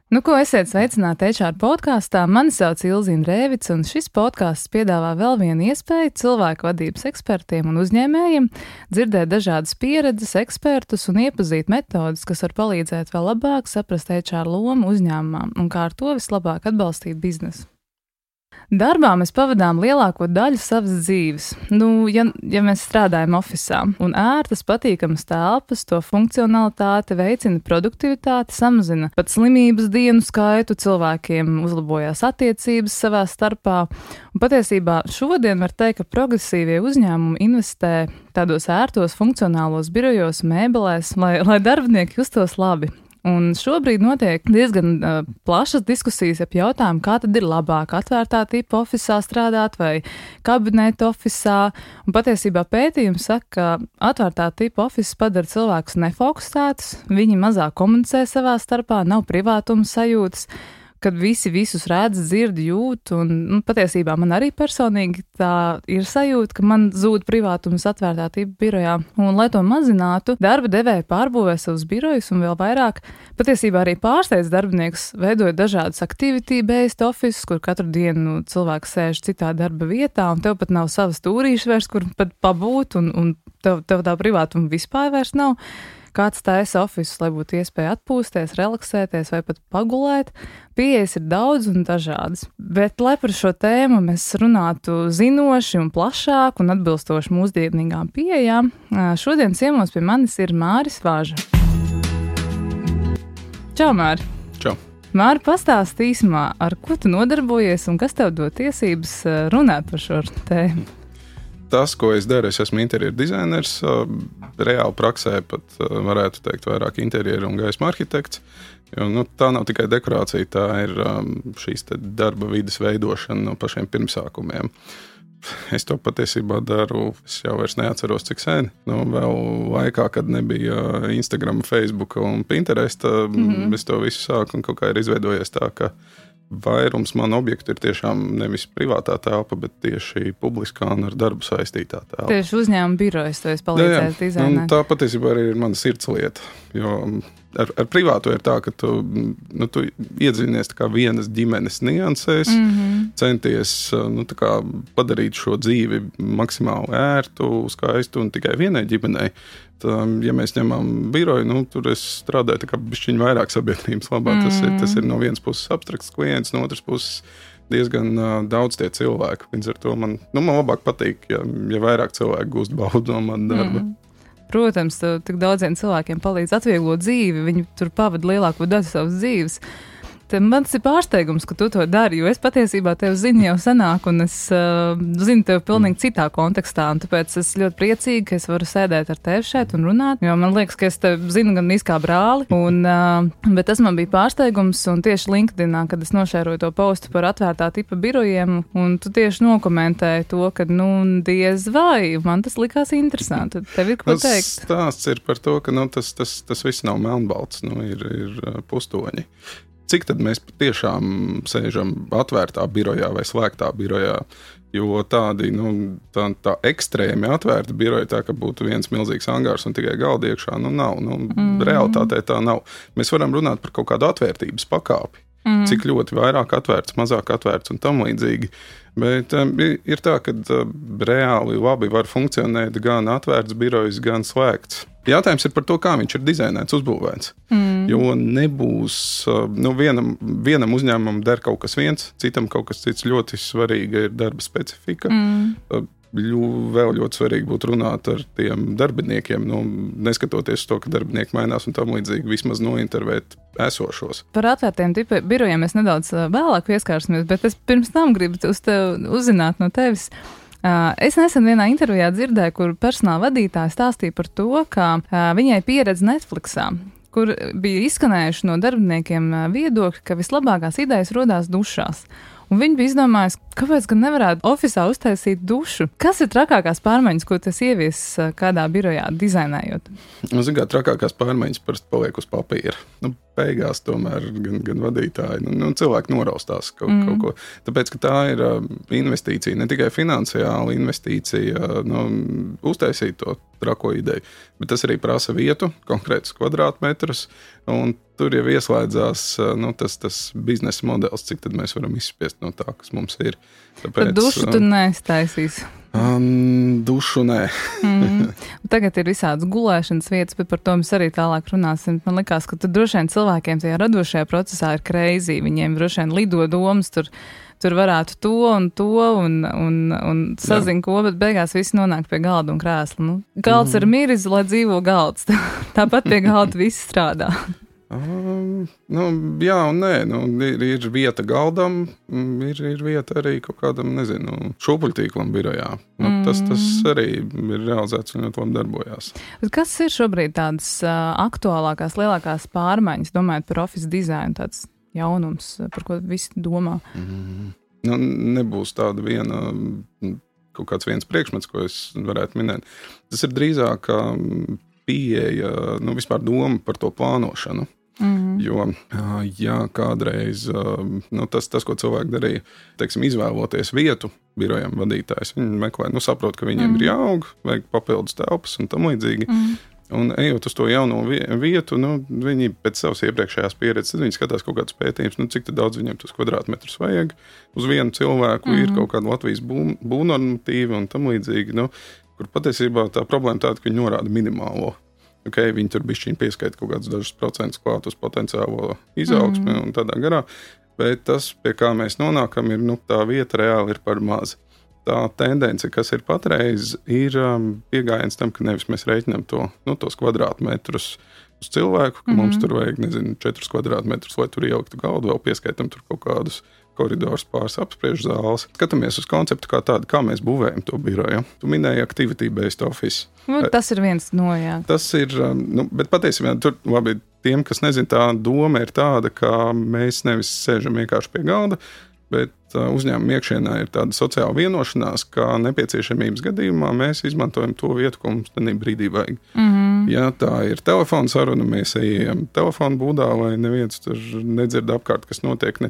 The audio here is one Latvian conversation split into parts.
Nu, ko esiet sveicināti HR podkāstā. Mani sauc Ilzīna Rēvica, un šis podkāsts piedāvā vēl vienu iespēju cilvēku vadības ekspertiem un uzņēmējiem dzirdēt dažādas pieredzes, ekspertus un iepazīt metodas, kas var palīdzēt vēl labāk saprast HR lomu uzņēmumā un kā ar to vislabāk atbalstīt biznesu. Darbā mēs pavadām lielāko daļu savas dzīves. Ja mēs strādājam ofisā, un ērtas, patīkamas telpas, to funkcionalitāte veicina produktivitāti, samazina pat slimības dienu skaitu, cilvēkiem uzlabojās attiecības savā starpā. Un patiesībā šodien var teikt, ka progresīvie uzņēmumi investē tādos ērtos funkcionālos birojos, mēbelēs, lai darbinieki justos labi. Un šobrīd notiek diezgan plašas diskusijas ap jautājumu, kā tad ir labāk atvērtā tipa ofisā strādāt vai kabineta ofisā. Un patiesībā pētījums saka, ka atvērtā tipa ofisa padara cilvēkus nefokusētus, viņi mazāk komunicē savā starpā, nav privātuma sajūtas, kad visi visus redz, dzird, jūt, un patiesībā man arī personīgi tā ir sajūta, ka man zūd privātums atvērtā tipa birojā. Un, lai to mazinātu, darba devēji pārbūvē savus birojus un vēl vairāk, patiesībā arī pārsteidz darbiniekus, veidojot dažādus activity-based offices, kur katru dienu cilvēks sēž citā darba vietā, un tev pat nav savas stūrīšas vairs, kur pat pabūt, un tev tā privātuma vispār vairs nav. Kāds taisa ofisus, lai būtu iespēja atpūsties, relaksēties vai pat pagulēt. Pieejas ir daudz un dažādas. Bet, lai par šo tēmu mēs runātu zinoši un plašāk un atbilstoši mūsdienīgām pieejām, šodien ciemos pie manis ir Māris Vāža. Čau, Māri! Čau! Māri, pastāsti īsumā, ar ko tu nodarbojies un kas tev dod tiesības runāt par šo tēmu? Tas, ko es daru, es esmu interjeru dizainers, reāli praksē pat varētu teikt vairāk interjeru un gaisma arhitekts. Jo, tā nav tikai dekorācija, tā ir šīs darba vides veidošana no pašiem pirmsākumiem. Es to patiesībā daru, es jau vairs neatceros, cik sen. Vēl laikā, kad nebija Instagram, Facebook un Pinterest, es to visu sāku un kaut kā ir izveidojies tā, ka vairums manu objektu ir tiešām nevis privātā telpa, bet tieši publiskā un ar darbu saistītā telpa. Tieši uzņēmuma birojas to es palīdzēju dizainēt. Tā patiesībā arī ir mana sirdslieta, jo ar privāto ir tā, ka tu iedzinies tā kā vienas ģimenes niansēs, centies tā kā padarīt šo dzīvi maksimāli ērtu, skaistu un tikai vienai ģimenei. Ja mēs ņemam biroju, tur es strādāju tā kā bišķiņ vairāk sabiedrības labā. Tas ir no vienas puses abstrakts klients, no otras puses diezgan daudz tie cilvēki. Līdz ar to man labāk patīk, ja vairāk cilvēku gūst baudu no man darba. Protams, tik daudziem cilvēkiem palīdz atvieglot dzīvi, viņi tur pavada lielāko daļu savas dzīves. Mans ir pārsteigums, ka tu to dari, jo es patiesībā tevi zinu jau senāk, un es zinu tevi pilnīgi citā kontekstā, un tāpēc es ļoti priecīgi, ka es varu sēdēt ar tevi šeit un runāt, jo man liekas, ka es tevi zinu gan kā brāli, bet tas man bija pārsteigums, un tieši LinkedInā, kad es nošēroju to postu par atvērtā tipa birojiem, un tu tieši nokomentēji to, ka, diez vai, man tas likās interesanti. Tev ir ko teikt? Stāsts ir par to, ka, tas viss nav melnbalts, ir pustoņi. Cik tad mēs patiešām sēžam atvērtā birojā vai slēgtā birojā, jo tādi, tā ekstrēmi atvērta biroja, tā ka būtu viens milzīgs angārs un tikai galdi iekšā, nav. Realitātē tā nav. Mēs varam runāt par kaut kādu atvērtības pakāpi, cik ļoti vairāk atvērts, mazāk atvērts un tam līdzīgi. Bet ir tā, ka reāli labi var funkcionēt gan atvērts birojs, gan slēgts. Jautājums ir par to, kā viņš ir dizainēts, uzbūvēts. Jo nebūs, vienam uzņēmumam der kaut kas viens, citam kaut kas cits. Ļoti svarīga ir darba specifika. Vēl ļoti svarīgi būtu runāt ar tiem darbiniekiem, neskatoties to, ka darbinieki mainās un tam līdzīgi, vismaz nointervēt esošos. Par atvērtiem tipa birojiem mēs nedaudz vēlāk pieskārsimies, bet es pirms tam gribu uzzināt no tevis. Es nesen vienā intervijā dzirdēju, kur personāla vadītāja stāstīja par to, ka viņai pieredze Netflixā, kur bija izskanējuši no darbiniekiem viedokļi, ka vislabākās idejas rodās dušās. Un viņi bija izdomājuši, kāpēc gan nevarētu ofisā uztaisīt dušu. Kas ir trakākās pārmaiņas, ko tas ievies kādā birojā dizainējot? Trakākās pārmaiņas parasti paliek uz papīra. beigās tomēr gan vadītāji, cilvēki noraustās kaut ko. Tāpēc, ka tā ir investīcija, ne tikai finansiāla investīcija, uztaisīt to trako ideju, bet tas arī prasa vietu, konkrētus kvadrātmetrus, un tur jau ieslēdzās tas biznesa modelis, cik tad mēs varam izspiest no tā, kas mums ir. Tāpēc, bet dušu tu neiztaisīs? Dušu nē. Tagad ir visādas gulēšanas vietas, bet par to mēs arī tālāk runāsim. Man likās, ka tur droši vien cilvēkiem tajā radošajā procesā ir crazy. Viņiem droši vien lido domas, tur varētu to un sazin ko, bet beigās viss nonāk pie galda un krēsla. Galds ir miris, lai dzīvo galds. Tāpat pie galda viss strādā. Jā un nē, ir vieta galdam, ir vieta arī kaut kādam, šūpuļtīklam birojā. Tas arī ir realizēts un ļoti labi darbojās. Bet kas ir šobrīd tādas aktuālākās, lielākās pārmaiņas, domājot par office dizainu, tāds jaunums, par ko visi domā? Nebūs tāda kaut kāds viens priekšmets, ko es varētu minēt. Tas ir drīzāk pieeja, vispār doma par to plānošanu. Jo, kādreiz tas, ko cilvēki darīja, izvēloties vietu birojam vadītājs, viņi meklē, saprot, ka viņiem ir jāaug, vajag papildus telpas un tam līdzīgi. Un ejot uz to jauno vietu, viņi pēc savas iepriekšējās pieredzes, tad viņi skatās kaut kādus pētījumus, cik daudz viņiem tos kvadrātmetrus vajag. Uz vienu cilvēku ir kaut kāda Latvijas būvnormatīva un tam līdzīgi, kur patiesībā tā problēma tāda, ka viņi norāda minimālo. Viņi tur bišķiņ pieskaita kaut kādus dažus procentus klāt uz potenciālo izaugsmi un tādā garā, bet tas, pie kā mēs nonākam, ir, tā vieta reāli ir par maz. Tā tendence, kas ir patreiz, ir piegājiens tam, ka nevis mēs reiķinām tos kvadrātmetrus uz cilvēku, ka mums tur vajag, 4 kvadrātmetrus, lai tur ieliktu galdu, vēl pieskaitam tur kaut kādus koridors, pāris apspriežu zāles. Skatāmies uz konceptu kā tādu, kā mēs būvējam to biroju. Tu minēji activity-based office. Tas ir viens no, jā. Tas ir, bet patiesībā tur labi, tiem, kas nezin, tā doma ir tāda, ka mēs nevis sēžam vienkārši pie galda, bet uzņēmuma iekšienā ir tāda sociāla vienošanās, ka nepieciešamības gadījumā mēs izmantojam to vietu, ko mums tenī brīdī vajag. Ja tā ir telefona saruna, mēs ejam telefonu būdā, lai neviens tur nedzird apkārt, kas notiek ne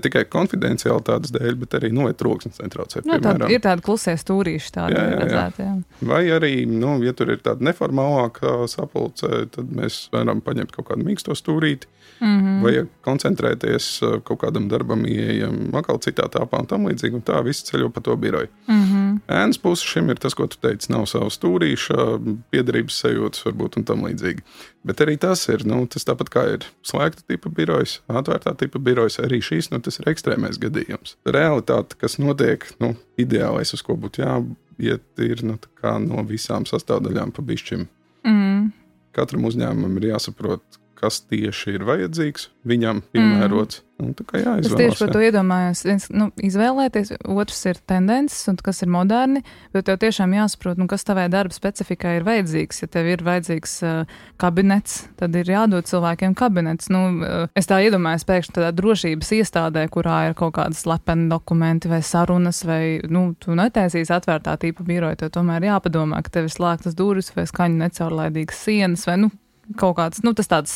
tikai konfidenciālitātes dēļ, bet arī troksnis netraucē. Ir tāda klusie stūrīši tādi redzēti. Vai arī, ja tur ir tāda neformālāka sapulce, tad mēs varam paņemt kaut kādu mīksto stūrīti, vai koncentrēties kaut kādam darbam, ieejam atkal citā tāpā un tam līdzīgi, un tā viss ceļo pa to biroju. Ēnas puse šim ir tas, ko tu teici, nav savu stūrīša, piederības sajūtas varbūt un tam līdzīgi. Bet arī tas ir, tas tāpat kā ir slēgta tipa birojas, atvērtā tipa birojas, arī šīs, tas ir ekstrēmais gadījums. Realitāte, kas notiek, ideālais, uz ko būtu jāiet, ir no visām sastāvdaļām pa bišķim. Katram uzņēmumam ir jāsaprot, kas tieši ir vajadzīgs, viņam piemērots. Tā kā jāizvēlas. Es tieši par to iedomājos. Izvēlēties, otrs ir tendences, un kas ir moderni, bet tev tiešām jāsaprot, kas tavai darba specifikai ir vajadzīgs. Ja tev ir vajadzīgs kabinets, tad ir jādod cilvēkiem kabinets. Es tā iedomājos pēkšņi tādā drošības iestādē, kurā ir kaut kādas slepeni dokumenti vai sarunas, vai, tu netaisīsi atvērtā tipa biroju, tev tomēr jāpadomā, ka tev ir slēgtas durvis vai skaņu necaurlaidīgas sienas, vai, kaut kāds, tas tāds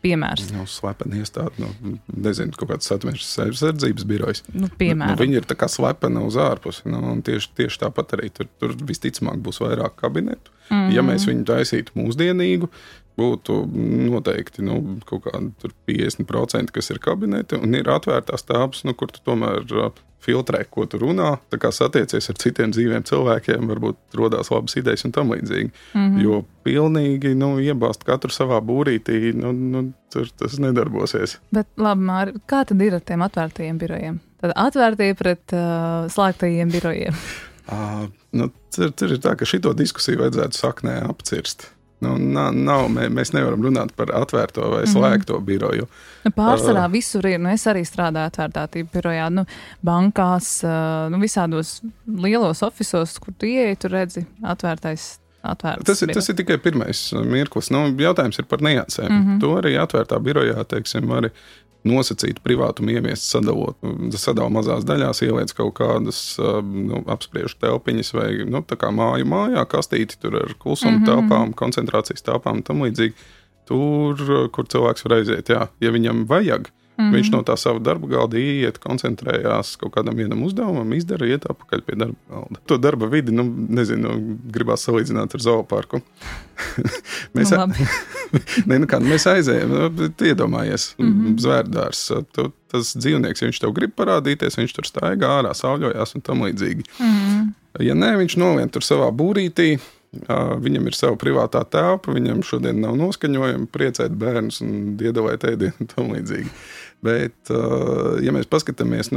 piemērs. Slepeni iestādi, nezinu, kaut kāds satversmes sardzības birojs. Piemēram. Viņi ir tā kā slepeni uz ārpusi, un tieši tāpat arī tur visticamāk būs vairāk kabinetu. Ja mēs viņu taisītu mūsdienīgu, būtu noteikti kaut kādi 50%, kas ir kabineti, un ir atvērtās tāpas, kur tu tomēr filtrē, ko tu runā, tā kā satiecies ar citiem dzīviem cilvēkiem, varbūt rodās labas idejas un tam līdzīgi. Jo pilnīgi, iebāzt katru savā būrītī, tur tas nedarbosies. Bet labi, Māri, kā tad ir ar tiem atvērtajiem birojiem? Tad atvērtie pret slēgtajiem birojiem? Tur ir tā, ka šito diskusiju vajadzētu saknē apcirst. Mēs nevaram runāt par atvērto vai slēgto biroju. Pārsvarā visur ir, es arī strādāju atvērtā tipa birojā, bankās, visādos lielos ofisos, kur tu ieeji, tu redzi atvērts. Tas ir tikai pirmais mirklis. Jautājums ir par niansēm. To arī atvērtā birojā, var nosacīt privātumu ieviest, sadala mazās daļās, ieliec kaut kādas apspriežu telpiņas vai tā kā mājā kastīti tur ar klusumu telpām, koncentrācijas telpām un tam līdzīgi. tur, kur cilvēks var aiziet. Jā. Ja viņam vajag, viņš no tā sava darba galda iet, koncentrējās kaut kādam vienam uzdevumam, izdara, iet atpakaļ pie darba galda. To darba vidi, gribās salīdzināt ar zooparku. Mēs aizējam, iedomājies, zvērdārs. Tas dzīvnieks, ja viņš tev grib parādīties, viņš tur staigā ārā, sauļojās un tam līdzīgi. Ja nē, viņš nolien tur savā būrītī, viņam ir sava privātā telpa, viņam šodien nav noskaņojumi, priecēt bērnus un iedalēt ēdienu un tam līdzīgi. Bet, ja mēs paskatāmies,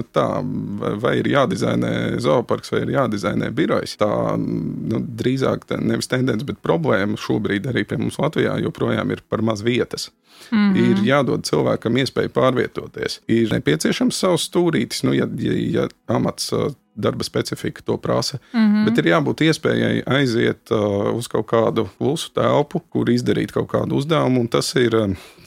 vai ir jādizainē zooparks, vai ir jādizainē birojs, tā drīzāk nevis tendence, bet problēma šobrīd arī pie mums Latvijā joprojām ir par maz vietas. Ir jādod cilvēkam iespēju pārvietoties. Ir nepieciešams savs stūrītis, ja amats darba specifika to prasa, bet ir jābūt iespējai aiziet uz kaut kādu klusu telpu, kur izdarīt kaut kādu uzdevumu, un tas ir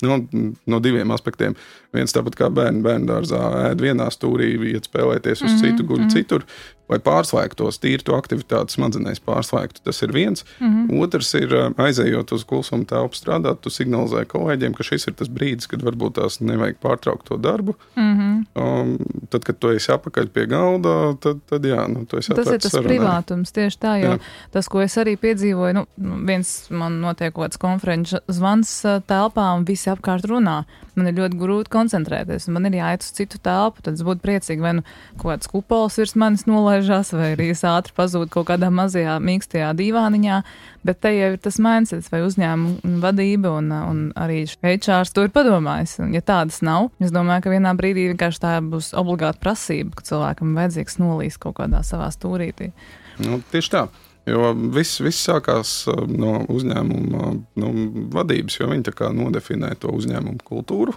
no diviem aspektiem. Viens tāpat kā bērndārzā ēd vienā stūrī, iet spēlēties uz citu, guļ citur, lai pārslēgtos, tīri to aktivitāti smadzenēs pārslēgtu. Tas ir viens. Otrs ir, aizējot uz klusuma telpu strādāt, tu signalizē kolēģiem, ka šis ir tas brīdis, kad varbūt tās nevajag pārtraukt to darbu. Tad, kad tu esi apakaļ pie galda, tad jā, tu esi tas ir tas sarunai. Privātums, tieši tā, jo tas, ko es arī piedzīvoju, viens man notiek kaut kāds konferenču zvans telpā un visi apkārt runā. Man ir ļoti grūti koncentrēties, un man ir jāiet uz citu telpu, tad es būtu priecīgi, vai kaut kāds kupols virs manis nolaižās, vai arī es ātri pazūdu kaut kādā mazajā mīkstajā dīvāniņā, bet te jau ir tas mindsets, vai uzņēmuma vadība, un arī HRs to ir padomājis. Un, ja tādas nav, es domāju, ka vienā brīdī vienkārši tā būs obligāta prasība, ka cilvēkam vajadzīgs nolīst kaut kādā savā stūrītī. Tieši tā. Jo viss sākās no uzņēmuma vadības, jo viņi tā kā nodefinē to uzņēmumu kultūru,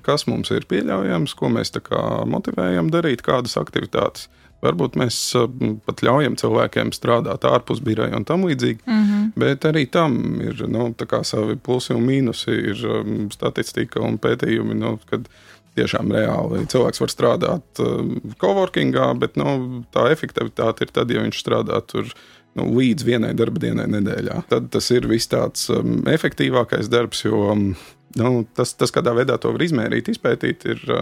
kas mums ir pieļaujams, ko mēs tā kā motivējam darīt, kādas aktivitātes. Varbūt mēs pat ļaujam cilvēkiem strādāt ārpus biroja un tam līdzīgi, bet arī tam ir tā kā savi plusi un mīnusi, ir statistika un pētījumi, kad tiešām reāli cilvēks var strādāt coworkingā, bet tā efektivitāte ir tad, ja viņš strādā tur līdz vienai darba dienai nedēļā. Tad tas ir viss tāds efektīvākais darbs, jo tas, kādā veidā to var izmērīt, izpētīt, ir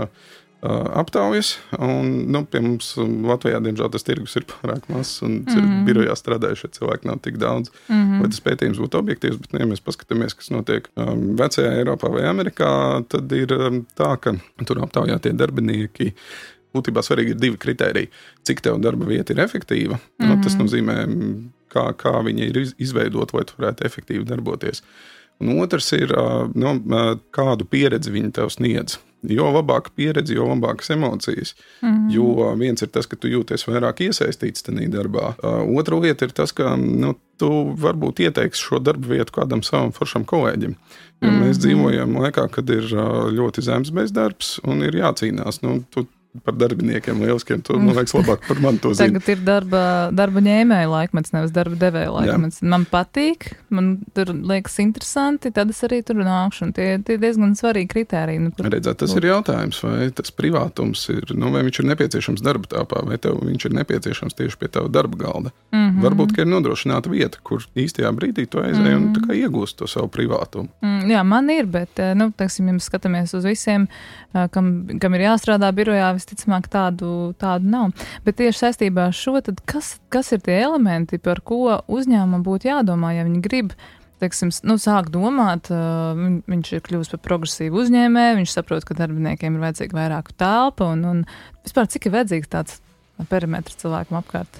aptaujas, un pie mums Latvijā, diemžēl, tas tirgus ir pārāk mazs, un birojā strādājušie cilvēki nav tik daudz, lai tas pētījums būtu objektīvs, bet, ja mēs paskatāmies, kas notiek vecajā Eiropā vai Amerikā, tad ir tā, ka tur aptaujātie darbinieki, būtībā svarīgi ir divi kritēriji. Cik tev darba vieta ir efektīva, tas nozīmē, kā viņa ir izveidota, lai tu varētu efektīvi darboties. Un otrs ir, kādu pieredzi viņi tev sniedz. Jo labāka pieredze, jo labākas emocijas. Jo viens ir tas, ka tu jūties vairāk iesaistīts tajā darbā. Otra lieta ir tas, ka tu varbūt ieteiksi šo darbu vietu kādam savam foršam kolēģim. Jo mēs dzīvojam laikā, kad ir ļoti zems bezdarbs un ir jācīnās. Tu par darbiniekiem lieliskiem, tu, man liekas, labāk par mani to zini. Tagad ir darba ņēmēja laikmets, nevis darba devēja laikmets. Jā. Man patīk, man tur liekas interesanti, tad es arī tur nākšu, un tie diezgan svarīgi kritēriji. Redzēt, tas ir jautājums, vai tas privātums ir, vai viņš ir nepieciešams darba tāpā, vai tev viņš ir nepieciešams tieši pie tava darba galda. Varbūt, ka ir nodrošināta vieta, kur īstajā brīdī tu aizēji un tā kā iegūst to savu privātumu. Jā, man ir, bet, teiksim, ja mēs skatāmies uz visiem, kam ir jāstrādā birojā, visticamāk tādu nav. Bet tieši saistībā ar šo, tad kas ir tie elementi, par ko uzņēmumam būtu jādomā, ja viņi grib, teiksim, sāk domāt, viņš ir kļuvis par progresīvu uzņēmēju, viņš saprot, ka darbiniekiem ir vajadzīga vairāk telpa un vispār cik ir vajadzīgs tāds perimetrs cilvēkam apkārt?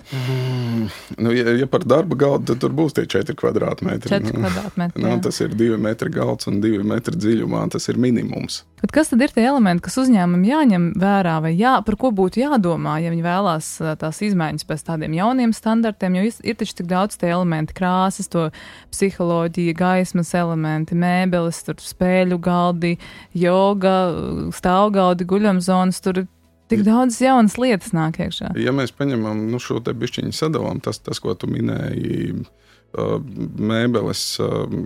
Ja par darba galdu, tad tur būs tie 4 kvadrātmetri. 4 kvadrātmetri, jā. Tas ir 2 metri galds un 2 metri dziļumā, tas ir minimums. Bet kas tad ir tie elementi, kas uzņēmumam jāņem vērā vai par ko būtu jādomā, ja viņi vēlās tās izmaiņas pēc tādiem jauniem standartiem, jo ir taču tik daudz tie elementi, krāsas, to psiholoģija, gaismas elementi, mēbeles, tur spēļu galdi, joga, stāvgaldi, guļamzonas, tur tik daudz jaunas lietas nāk iekšā. Ja mēs paņemam šo te bišķiņu sadalām, tas, ko tu minēji, mēbeles,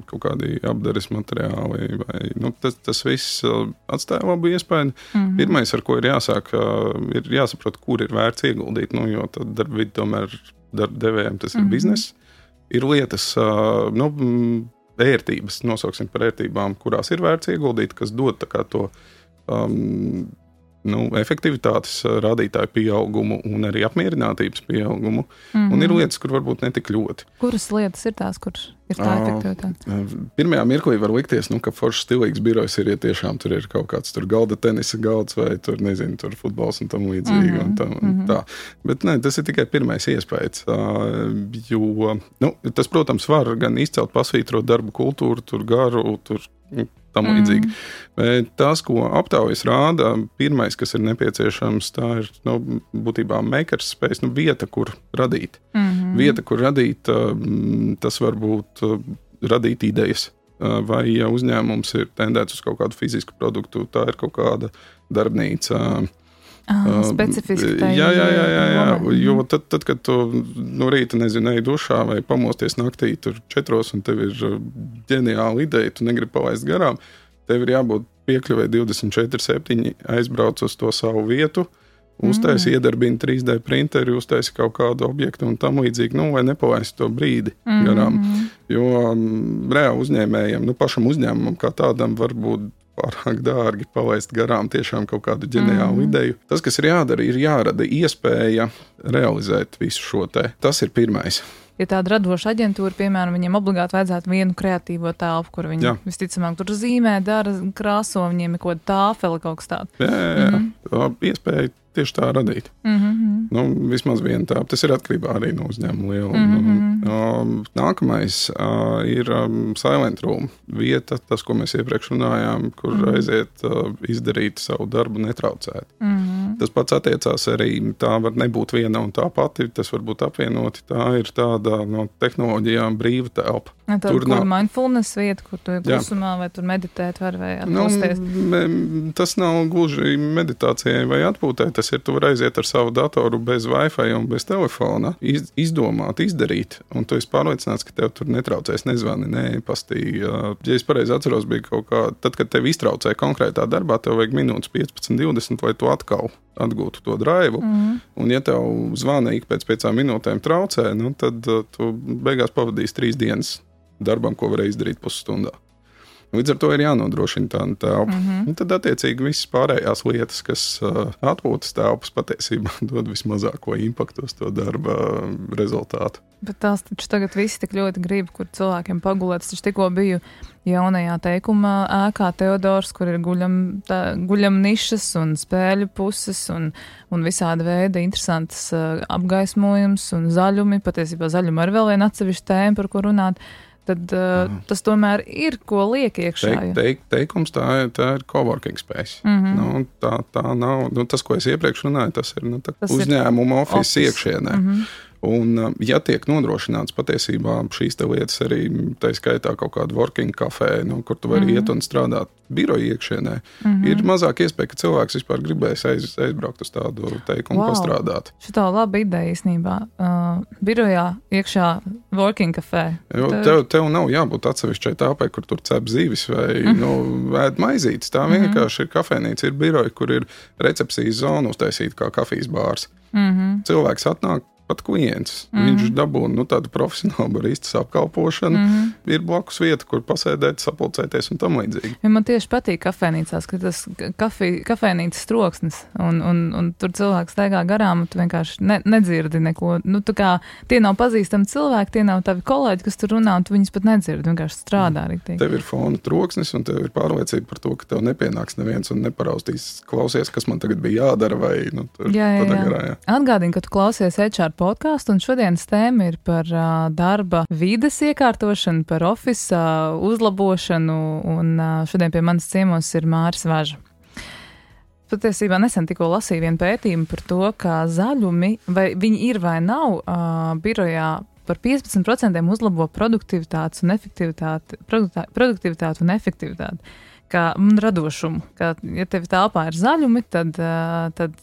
kaut kādi apdares materiāli, vai, tas viss atstāja labu iespēju. Pirmais, ar ko ir jāsāk, ir jāsaprot, kur ir vērts ieguldīt, jo tad darba vidi tomēr darba devējiem tas ir bizness. Ir lietas, ērtības, nosauksim par ērtībām, kurās ir vērts ieguldīt, kas dod tā kā to efektivitātes rādītāju pieaugumu un arī apmierinātības pieaugumu. Un ir lietas, kur varbūt netik ļoti. Kuras lietas ir tās, kuras ir tā efektivitāte? Pirmajā mirklī var likties, ka foršs stilīgs birojs ir, ja tiešām tur ir kaut kāds tur galda tenisa galds vai tur, nezinu, tur futbols un tam līdzīgi. Tā. Bet ne, tas ir tikai pirmais iespējas. Jo, tas, protams, var gan izcelt, pasvītrot darba kultūru, tur garu, tur tam līdzīgi. Bet tas, ko aptaujas rāda, pirmais, kas ir nepieciešams, tā ir būtībā makers space, vieta, kur radīt. Vieta, kur radīt, tas var būt radīt idejas. Vai ja uzņēmums ir tendēts uz kaut kādu fizisku produktu, tā ir kaut kāda darbnīca. Specifiski tā jā. Jo tad, kad tu no rīta, ej dušā vai pamosties naktī tur 4 un tev ir ģeniāla ideja, tu negribi palaist garām, tev ir jābūt piekļuvē 24/7, aizbrauc uz to savu vietu, uztaisi iedarbina 3D printeri, uztaisi kaut kādu objektu un tam līdzīgi, vai nepalaist to brīdi garām. Jo reāli uzņēmējiem, pašam uzņēmumam kā tādam var būt pārāk dārgi palaist garām tiešām kaut kādu ģeniālu ideju. Tas, kas ir jādara, ir jārada iespēja realizēt visu šo te. Tas ir pirmais. Ja tāda radoša aģentūra, piemēram, viņiem obligāti vajadzētu vienu kreatīvo telpu, kur viņi visticamāk tur zīmē, dara, krāso, viņiem ir kaut kāda tāfela, kaut kas tāds. Jā. Iespēja tieši tā radīt. Vismaz viena tā. Tas ir atkarībā arī no uzņēmuma lieluma. Nākamais ir silent room vieta, tas, ko mēs iepriekš runājām, kur aiziet izdarīt savu darbu netraucēt. Tas pats attiecās arī, tā var nebūt viena un tā pati, tas var būt apvienoti, tā ir tāda no tehnoloģijām brīva telpa. Tur mindfulness vieta, kur tu klusumā vai tur meditēt var vai atpūsties? Tas nav gluži meditācijai vai atpūtē, tas ir, tu var aiziet ar savu datoru bez Wi-Fi un bez telefona, izdomāt, izdarīt, un tu esi pārliecināts, ka tev tur netraucēs, nezvani, neepastī. Ja es pareizi atceros, bija kaut kā, tad, kad tev iztraucēja konkrētā darbā, tev vajag minūtes 15-20, lai tu atkal atgūtu to draivu, un ja tev zvana ik pēc 5 minūtēm traucē, tad tu beigās pavadīsi 3 dienas darbam, ko varēja izdarīt pusstundā. Līdz ar to ir jānodrošina tāda telpa. Tad, attiecīgi, visas pārējās lietas, kas atpūtas telpas patiesībā dod vismazāko impaktu uz to darba rezultātu. Bet tās taču tagad visi tik ļoti grib, kur cilvēkiem pagulēt. Es taču tikko biju jaunajā teikuma ēkā Teodors, kur ir guļam nišas un spēļu puses un visāda veida interesantas apgaismojums un zaļumi. Patiesībā zaļumi ir vēl viena atsevišķa tēma, par ko runāt. Tad tas tomēr ir, ko liek iekšā. Teikums tā ir coworking space. Tā nav, tas, ko es iepriekš runāju, tas ir uzņēmuma office iekšienē. Un, ja tiek nodrošināts patiesībā šīs te lietas arī, tā skaitā kaut kādu working kafē, kur tu vari iet un strādāt biroja iekšienē, ir mazāk iespēja, ka cilvēks vispār gribēs aizbraukt uz tādu teikumu pastrādāt. Šitā laba ideja īstenībā. Birojā iekšā working kafē. Tev nav jābūt atsevišķai tāpai, kur tur cep zīvis vai ēd maizītes. Tā vienkārši ir kafēnīca, ir biroja, kur ir recepcijas zona uztaisīta kā kafijas bārs. Cilvēks atnāk, pat klients. Viņš dabūna tādu profesionālu baristas apkalpošanu. Ir blakus vieta, kur pasēdēt, sapulcēties un tam līdzīgi. Ja man tieši patīk kafēnīcās, ka tas kafēnīcas troksnis un tur cilvēks staigā garām un tu vienkārši nedzirdi neko. Tā kā tie nav pazīstami cilvēki, tie nav tavi kolēģi, kas tur runā un tu viņus pat nedzirdi, vienkārši strādā rīktīgi. Tev ir fona troksnis un tev ir pārliecība par to, ka tev nepienāks neviens un neparaustīs klausies, kas man tagad bija jādara vai tur tādā garā. Atgādini, ka tu klausies HR podkāstu, un šodienas tēma ir par darba vides iekārtošanu, par ofisa uzlabošanu, un šodien pie manas ciemos ir Māris Važa. Patiesībā nesen tikko lasīju vienu pētījumu par to, ka zaļumi, vai viņi ir vai nav, birojā par 15% uzlabo produktivitāti un efektivitāti. Un radošumu. Ja tev tālpā ir zaļumi, tad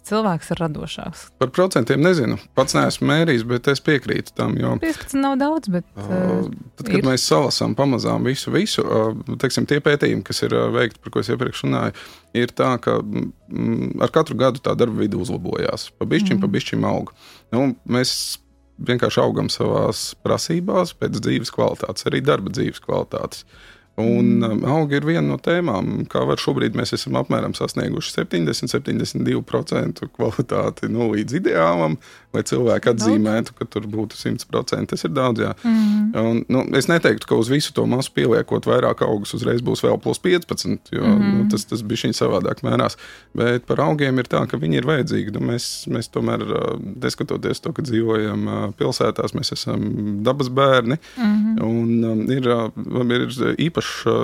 cilvēks ir radošāks. Par procentiem nezinu. Pats neesmu mērījis, bet es piekrītu tam, jo 15 nav daudz, bet tad, kad mēs salasām pamazām visu, teiksim, tie pētījumi, kas ir veikti, par ko es iepriekš runāju, ir tā, ka ar katru gadu tā darba vide uzlabojās. Pa bišķim aug. Mēs vienkārši augam savās prasībās pēc dzīves kvalitātes, arī darba dzīves kvalitātes. Un augi ir viena no tēmām, kā var šobrīd mēs esam apmēram sasnieguši 70-72% kvalitāti līdz ideālam, lai cilvēki atzīmētu, ka tur būtu 100%. Tas ir daudz, jā. Un, es neteiktu, ka uz visu to masu pieliekot vairāk augus uzreiz būs vēl plus 15, jo tas bišķiņ savādāk mērās. Bet par augiem ir tā, ka viņi ir vajadzīgi. Mēs tomēr, neskatoties to, ka dzīvojam pilsētās, mēs esam dabas bērni. Un ir īpašs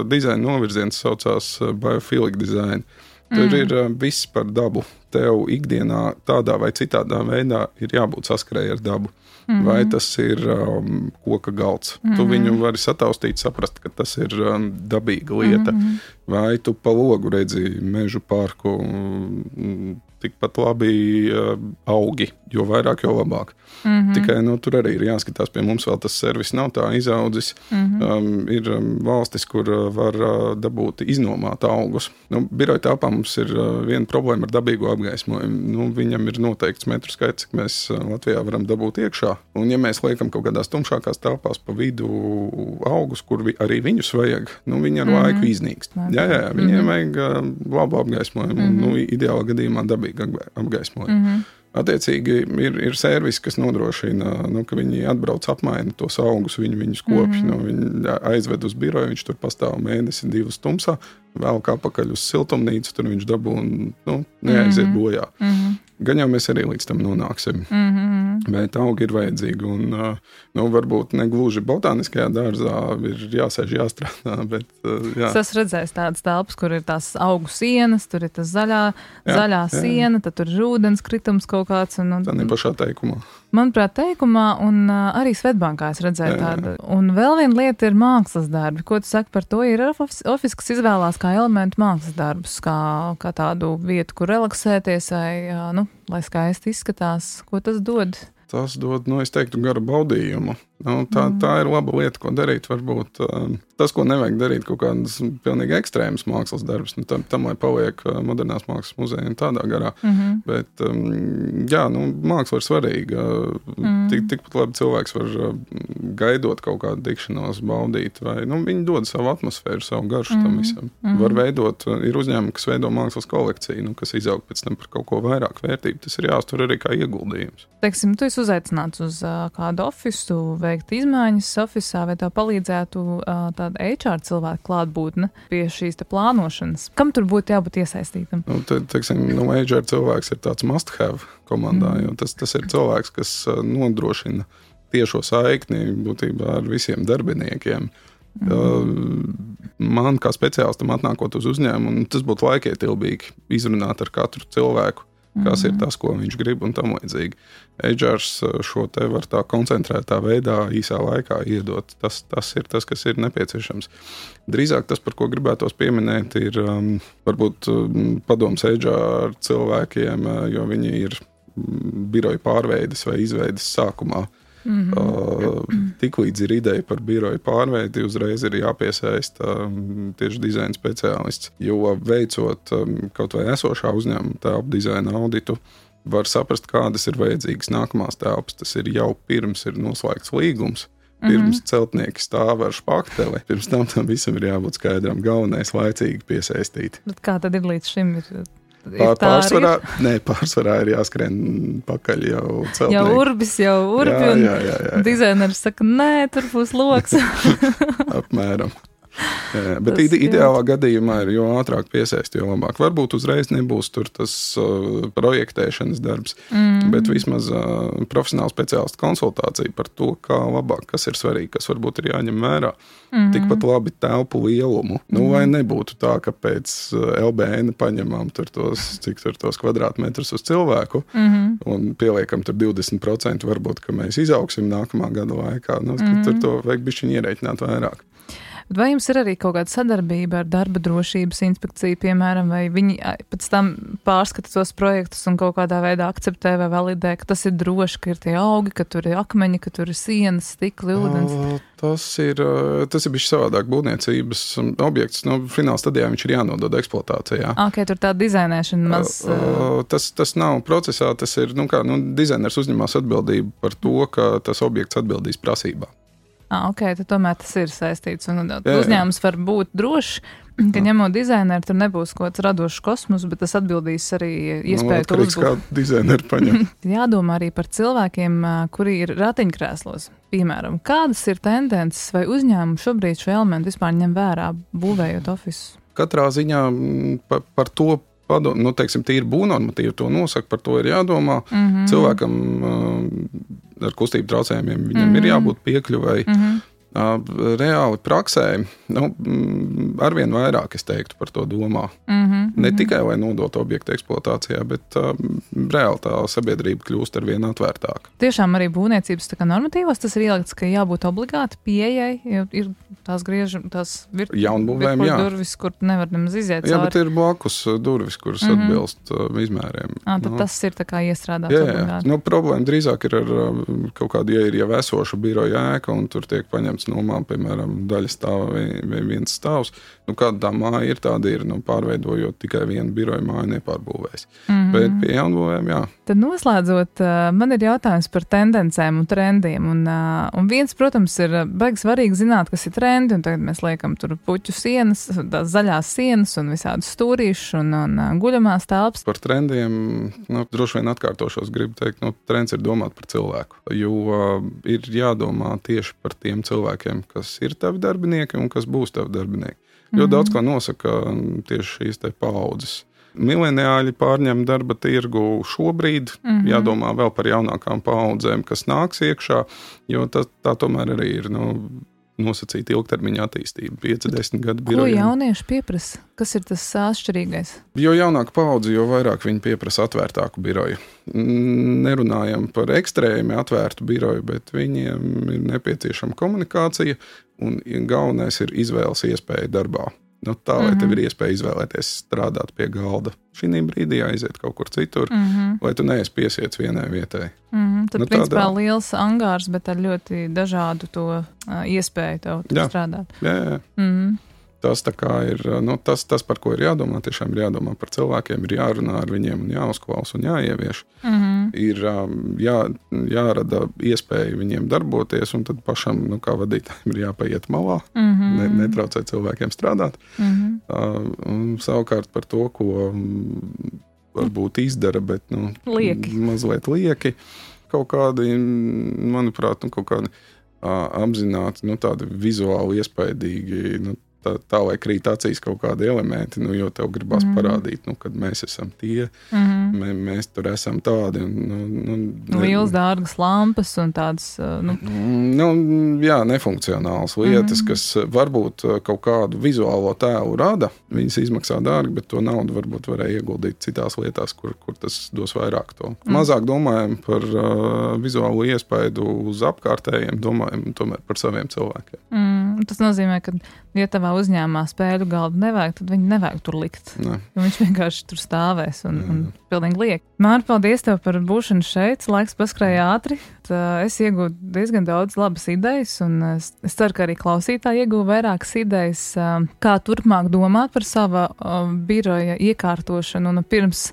dizaina novirziens, saucās biophilic design. Tur ir viss par dabu. Tev ikdienā tādā vai citādā veidā ir jābūt saskarēji ar dabu. Vai tas ir koka galds. Tu viņu vari sataustīt, saprast, ka tas ir dabīga lieta. Vai tu pa logu redzi mežu parku, tikpat labi augi, jo vairāk, jo labāk. Tikai tur arī ir jāskatās, pie mums vēl tas servis nav tā izaudzis. Ir valstis, kur var dabūt iznomāt augus. Biroja telpā mums ir viena problēma ar dabīgo apgaismojumu. Viņam ir noteikts metru skaits, cik mēs Latvijā varam dabūt iekšā. Un ja mēs liekam kaut kādās tumšākās telpās pa vidu augus, kur arī viņus vajag, viņi ar laiku iznīkst. Jā, viņiem vajag labu apgaismojumu un ideālā gadījumā dabīgu apgaismojumu. Attiecīgi ir servisi, kas nodrošina, ka viņi atbrauc apmaina tos augus, viņus kopj, viņi aizved uz biroju, viņš tur pastāv mēnesi, 2 tumsā, vēlk apakaļ uz siltumnīcu, tur viņš dabū un neaiziet bojā. Gan jau mēs arī līdz tam nonāksim. Bet augi ir vajadzīgi un varbūt ne gluži botāniskajā dārzā ir jāsēž, jāstrādā, bet jā. Es esmu redzējis tādas telpas, kur ir tās augu sienas, tur ir tas zaļā siena, tad tur ir ūdens kritums kaut kāds. Tā nepašā teikumā. Manuprāt, teikumā un arī Svetbankā es redzēju tādu. Un vēl viena lieta ir mākslas darbi. Ko tu saki par to? Ir ofis, kas izvēlās kā elementu mākslas darbus, kā tādu vietu, kur relaksēties vai, lai skaisti izskatās. Ko tas dod? Tas dod, es teiktu, garu baudījumu. Tā ir laba lieta, ko darīt. Varbūt tas, ko nevajag darīt, kaut kādas pilnīgi ekstrēmas mākslas darbus, tam lai paliek modernās mākslas muzeja un tādā garā. Bet, jā, māksla ir svarīga. Tikpat labi cilvēks var gaidot kaut kādu tikšanos, baudīt, vai viņi dod savu atmosfēru, savu garšu tam visam. Var veidot, ir uzņēmumi, kas veido mākslas kolekciju, kas izaug pēc tam par kaut ko vairāk vērtību. Tas ir jāuztur arī kā ieguldījums. Teiksim, tu esi uzaicināts uz kādu ofisu, veikt izmaiņas ofisā, vai tev palīdzētu tāda HR cilvēka klātbūtne pie šīs plānošanas? Kam tur būtu jābūt iesaistītam? Teiksim, HR cilvēks ir tāds must-have komandā, jo tas ir cilvēks, kas nodrošina tiešo saikni būtībā ar visiem darbiniekiem. Man kā speciālistam atnākot uz uzņēmumu, tas būtu laikietilbīgi izrunāt ar katru cilvēku, kas ir tas, ko viņš grib un tam līdzīgi. HRs šo te var tā koncentrētā veidā īsā laikā iedot. Tas ir tas, kas ir nepieciešams. Drīzāk tas, par ko gribētos pieminēt, ir varbūt padoms HR cilvēkiem, jo viņi ir biroja pārveides vai izveides sākumā. Tiklīdz ir ideja par biroju pārveidi, uzreiz ir jāpiesaista tieši dizaina speciālists. Jo veicot kaut vai esošā uzņēmuma telpu dizaina auditu, var saprast, kādas ir vajadzīgas nākamās telpas. Tas ir jau pirms ir noslēgts līgums, pirms celtnieki stāv ar špakteli. Pirms tam visam ir jābūt skaidram, galvenais laicīgi piesaistīt. Bet kā tad ir līdz šim? Pārsvarā ir jāskrien pakaļ jau celtnieki. Jau urbi, un dizaineris saka, nē, tur būs loks. Apmēram. Bet ideālā gadījumā ir, jo ātrāk piesaist, jo labāk. Varbūt uzreiz nebūs tur tas projektēšanas darbs, bet vismaz profesionāla speciālista konsultācija par to, kā labāk, kas ir svarīgi, kas varbūt ir jāņem vērā. Tikpat labi telpu lielumu. Lai nebūtu tā, ka pēc LBN paņemam cik tos kvadrātmetrus uz cilvēku un pieliekam tur 20%, varbūt, ka mēs izaugsim nākamā gada laikā. Tur to vajag bišķiņ ierēķināt vairāk. Bet vai jums ir arī kaut kāda sadarbība ar darba drošības inspekciju, piemēram, vai viņi pēc tam pārskata tos projektus un kaut kādā veidā akceptē vai validē, ka tas ir droši, ka ir tie augi, ka tur ir akmeņi, ka tur ir sienas, stikli, ūdens? Tas ir bijis savādāk būvniecības objekts. Fināla stadijā viņš ir jānodod eksploatācijā. Tur tā dizainēšana maz... Tas nav procesā, tas ir, dizainers uzņemās atbildību par to, ka tas objekts atbildīs prasībā. Tad tomēr tas ir saistīts. Un uzņēmums var būt drošs, ka ņemot dizaineru, tur nebūs kaut kāds radošs kosmos, bet tas atbildīs arī iespēju to uzbūt. Kā dizaineru paņem. Jādomā arī par cilvēkiem, kuri ir ratiņkrēslos. Piemēram, kādas ir tendences vai uzņēmumi šobrīd šo elementu vispār ņem vērā, būvējot ofisus? Katrā ziņā par to padomā, tīri būvnormatīvi to nosaka, par to ir jādomā. Cilvēkam ar kustību traucējumiem viņam ir jābūt piekļuvai. Reāli praksē, arvien vairāk, es teiktu, par to domā. Ne tikai, lai nodotu objektu eksploatācijā, bet reāli tā sabiedrība kļūst arvien atvērtāka. Tiešām arī būvniecības normatīvos tas ir ielikts, ka jābūt obligāti pieejai, jo ir tās jaunbūvēm, durvis, kur nevar nemaz iziet cauri. Jā, bet ir blakus durvis, kuras atbilst izmēriem. Tad tas ir tā kā iestrādāts obligāti. Problēma drīzāk ir ar kaut kādu, ja ir jau esošu biroja ēka, un tur tiek paņemts nomā, piemēram, daļa stāva vai viens stāvs. Kāda tā māja ir, tāda ir, pārveidojot tikai vienu biroja māju nepārbūvēs. Bet pie jaunbūvēm, jā. Tad noslēdzot, man ir jautājums par tendencēm un trendiem. Un viens, protams, ir baigi svarīgi zināt, kas ir trendi, un tagad mēs liekam tur puķu sienas, tās zaļās sienas un visādus stūrīšus un guļamās telpas. Par trendiem, droši vien atkārtošos gribu teikt, trends ir domāt par cilvēku, jo ir jādomā tieši par tiem cilvēkiem, kas ir tavi darbinieki un kas būs tavi darbinieki. Jo daudz ko nosaka tieši šīs te paaudzes. Mileniāļi pārņem darba tirgu šobrīd, jādomā vēl par jaunākām paaudzēm, kas nāks iekšā, jo tā tomēr arī ir nosacīta ilgtermiņa attīstība, 5-10 gadu birojiem. Ko jaunieši pieprasa? Kas ir tas atšķirīgais? Jo jaunāka paudze, jo vairāk viņi pieprasa atvērtāku biroju. Nerunājam par ekstrēmi atvērtu biroju, bet viņiem ir nepieciešama komunikācija, un galvenais ir izvēles iespēja darbā. Tā, lai tev ir iespēja izvēlēties strādāt pie galda. Šī brīdī aiziet kaut kur citur, lai tu neesi piesiets vienai vietai. Tad, principā, liels angārs, bet ar ļoti dažādu to iespēju tev strādāt. Jā. Tas tā kā ir, tas, par ko ir jādomā, tiešām ir jādomā par cilvēkiem, ir jārunā ar viņiem un jāuzklaus un jāievieš. Ir jārada iespēja viņiem darboties, un tad pašam, kā vadītājiem, ir jāpaiet malā, netraucēt cilvēkiem strādāt. Savukārt par to, ko varbūt izdara, bet mazliet lieki, kaut kādi, manuprāt, kaut kādi apzināti, tādi vizuāli iespaidīgi, tā lai krīt acīs kaut kādi elementi, jo tev gribās parādīt, kad mēs esam tie, mēs tur esam tādi. Lielas dārgas lampas un tādas... nefunkcionālas lietas, kas varbūt kaut kādu vizuālo tēlu rada, viņas izmaksā dārgi, bet to naudu varbūt varēja ieguldīt citās lietās, kur tas dos vairāk to. Mazāk domājam par vizuālo iespaidu uz apkārtējiem, domājam tomēr par saviem cilvēkiem. Tas nozīmē, ka ja tavā uzņēmumā spēļu galdu nevajag, tad viņi nevajag tur likt. Jo viņš vienkārši tur stāvēs un pilnīgi liek. Māri, paldies tev par būšanu šeit. Laiks paskrēja ātri. Es iegūtu diezgan daudz labas idejas, un es ceru, ka arī klausītāji ieguva vairākas idejas, kā turpmāk domāt par sava biroja iekārtošanu, un pirms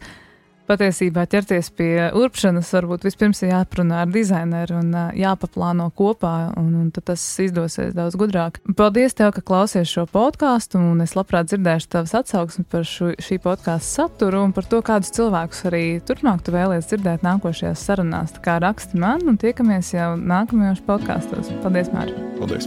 patiesībā ķerties pie urpšanas, varbūt vispirms ir jāprunā ar dizaineru un jāpaplāno kopā, un tad tas izdosies daudz gudrāk. Paldies tev, ka klausies šo podcastu, un es labprāt dzirdēšu tavas atsauksmi par šī podcastu saturu un par to, kādus cilvēkus arī turpmāk tu vēlies dzirdēt nākošajās sarunās. Tā kā raksti man, un tiekamies jau nākamajos podkastos. Paldies, Māri! Paldies!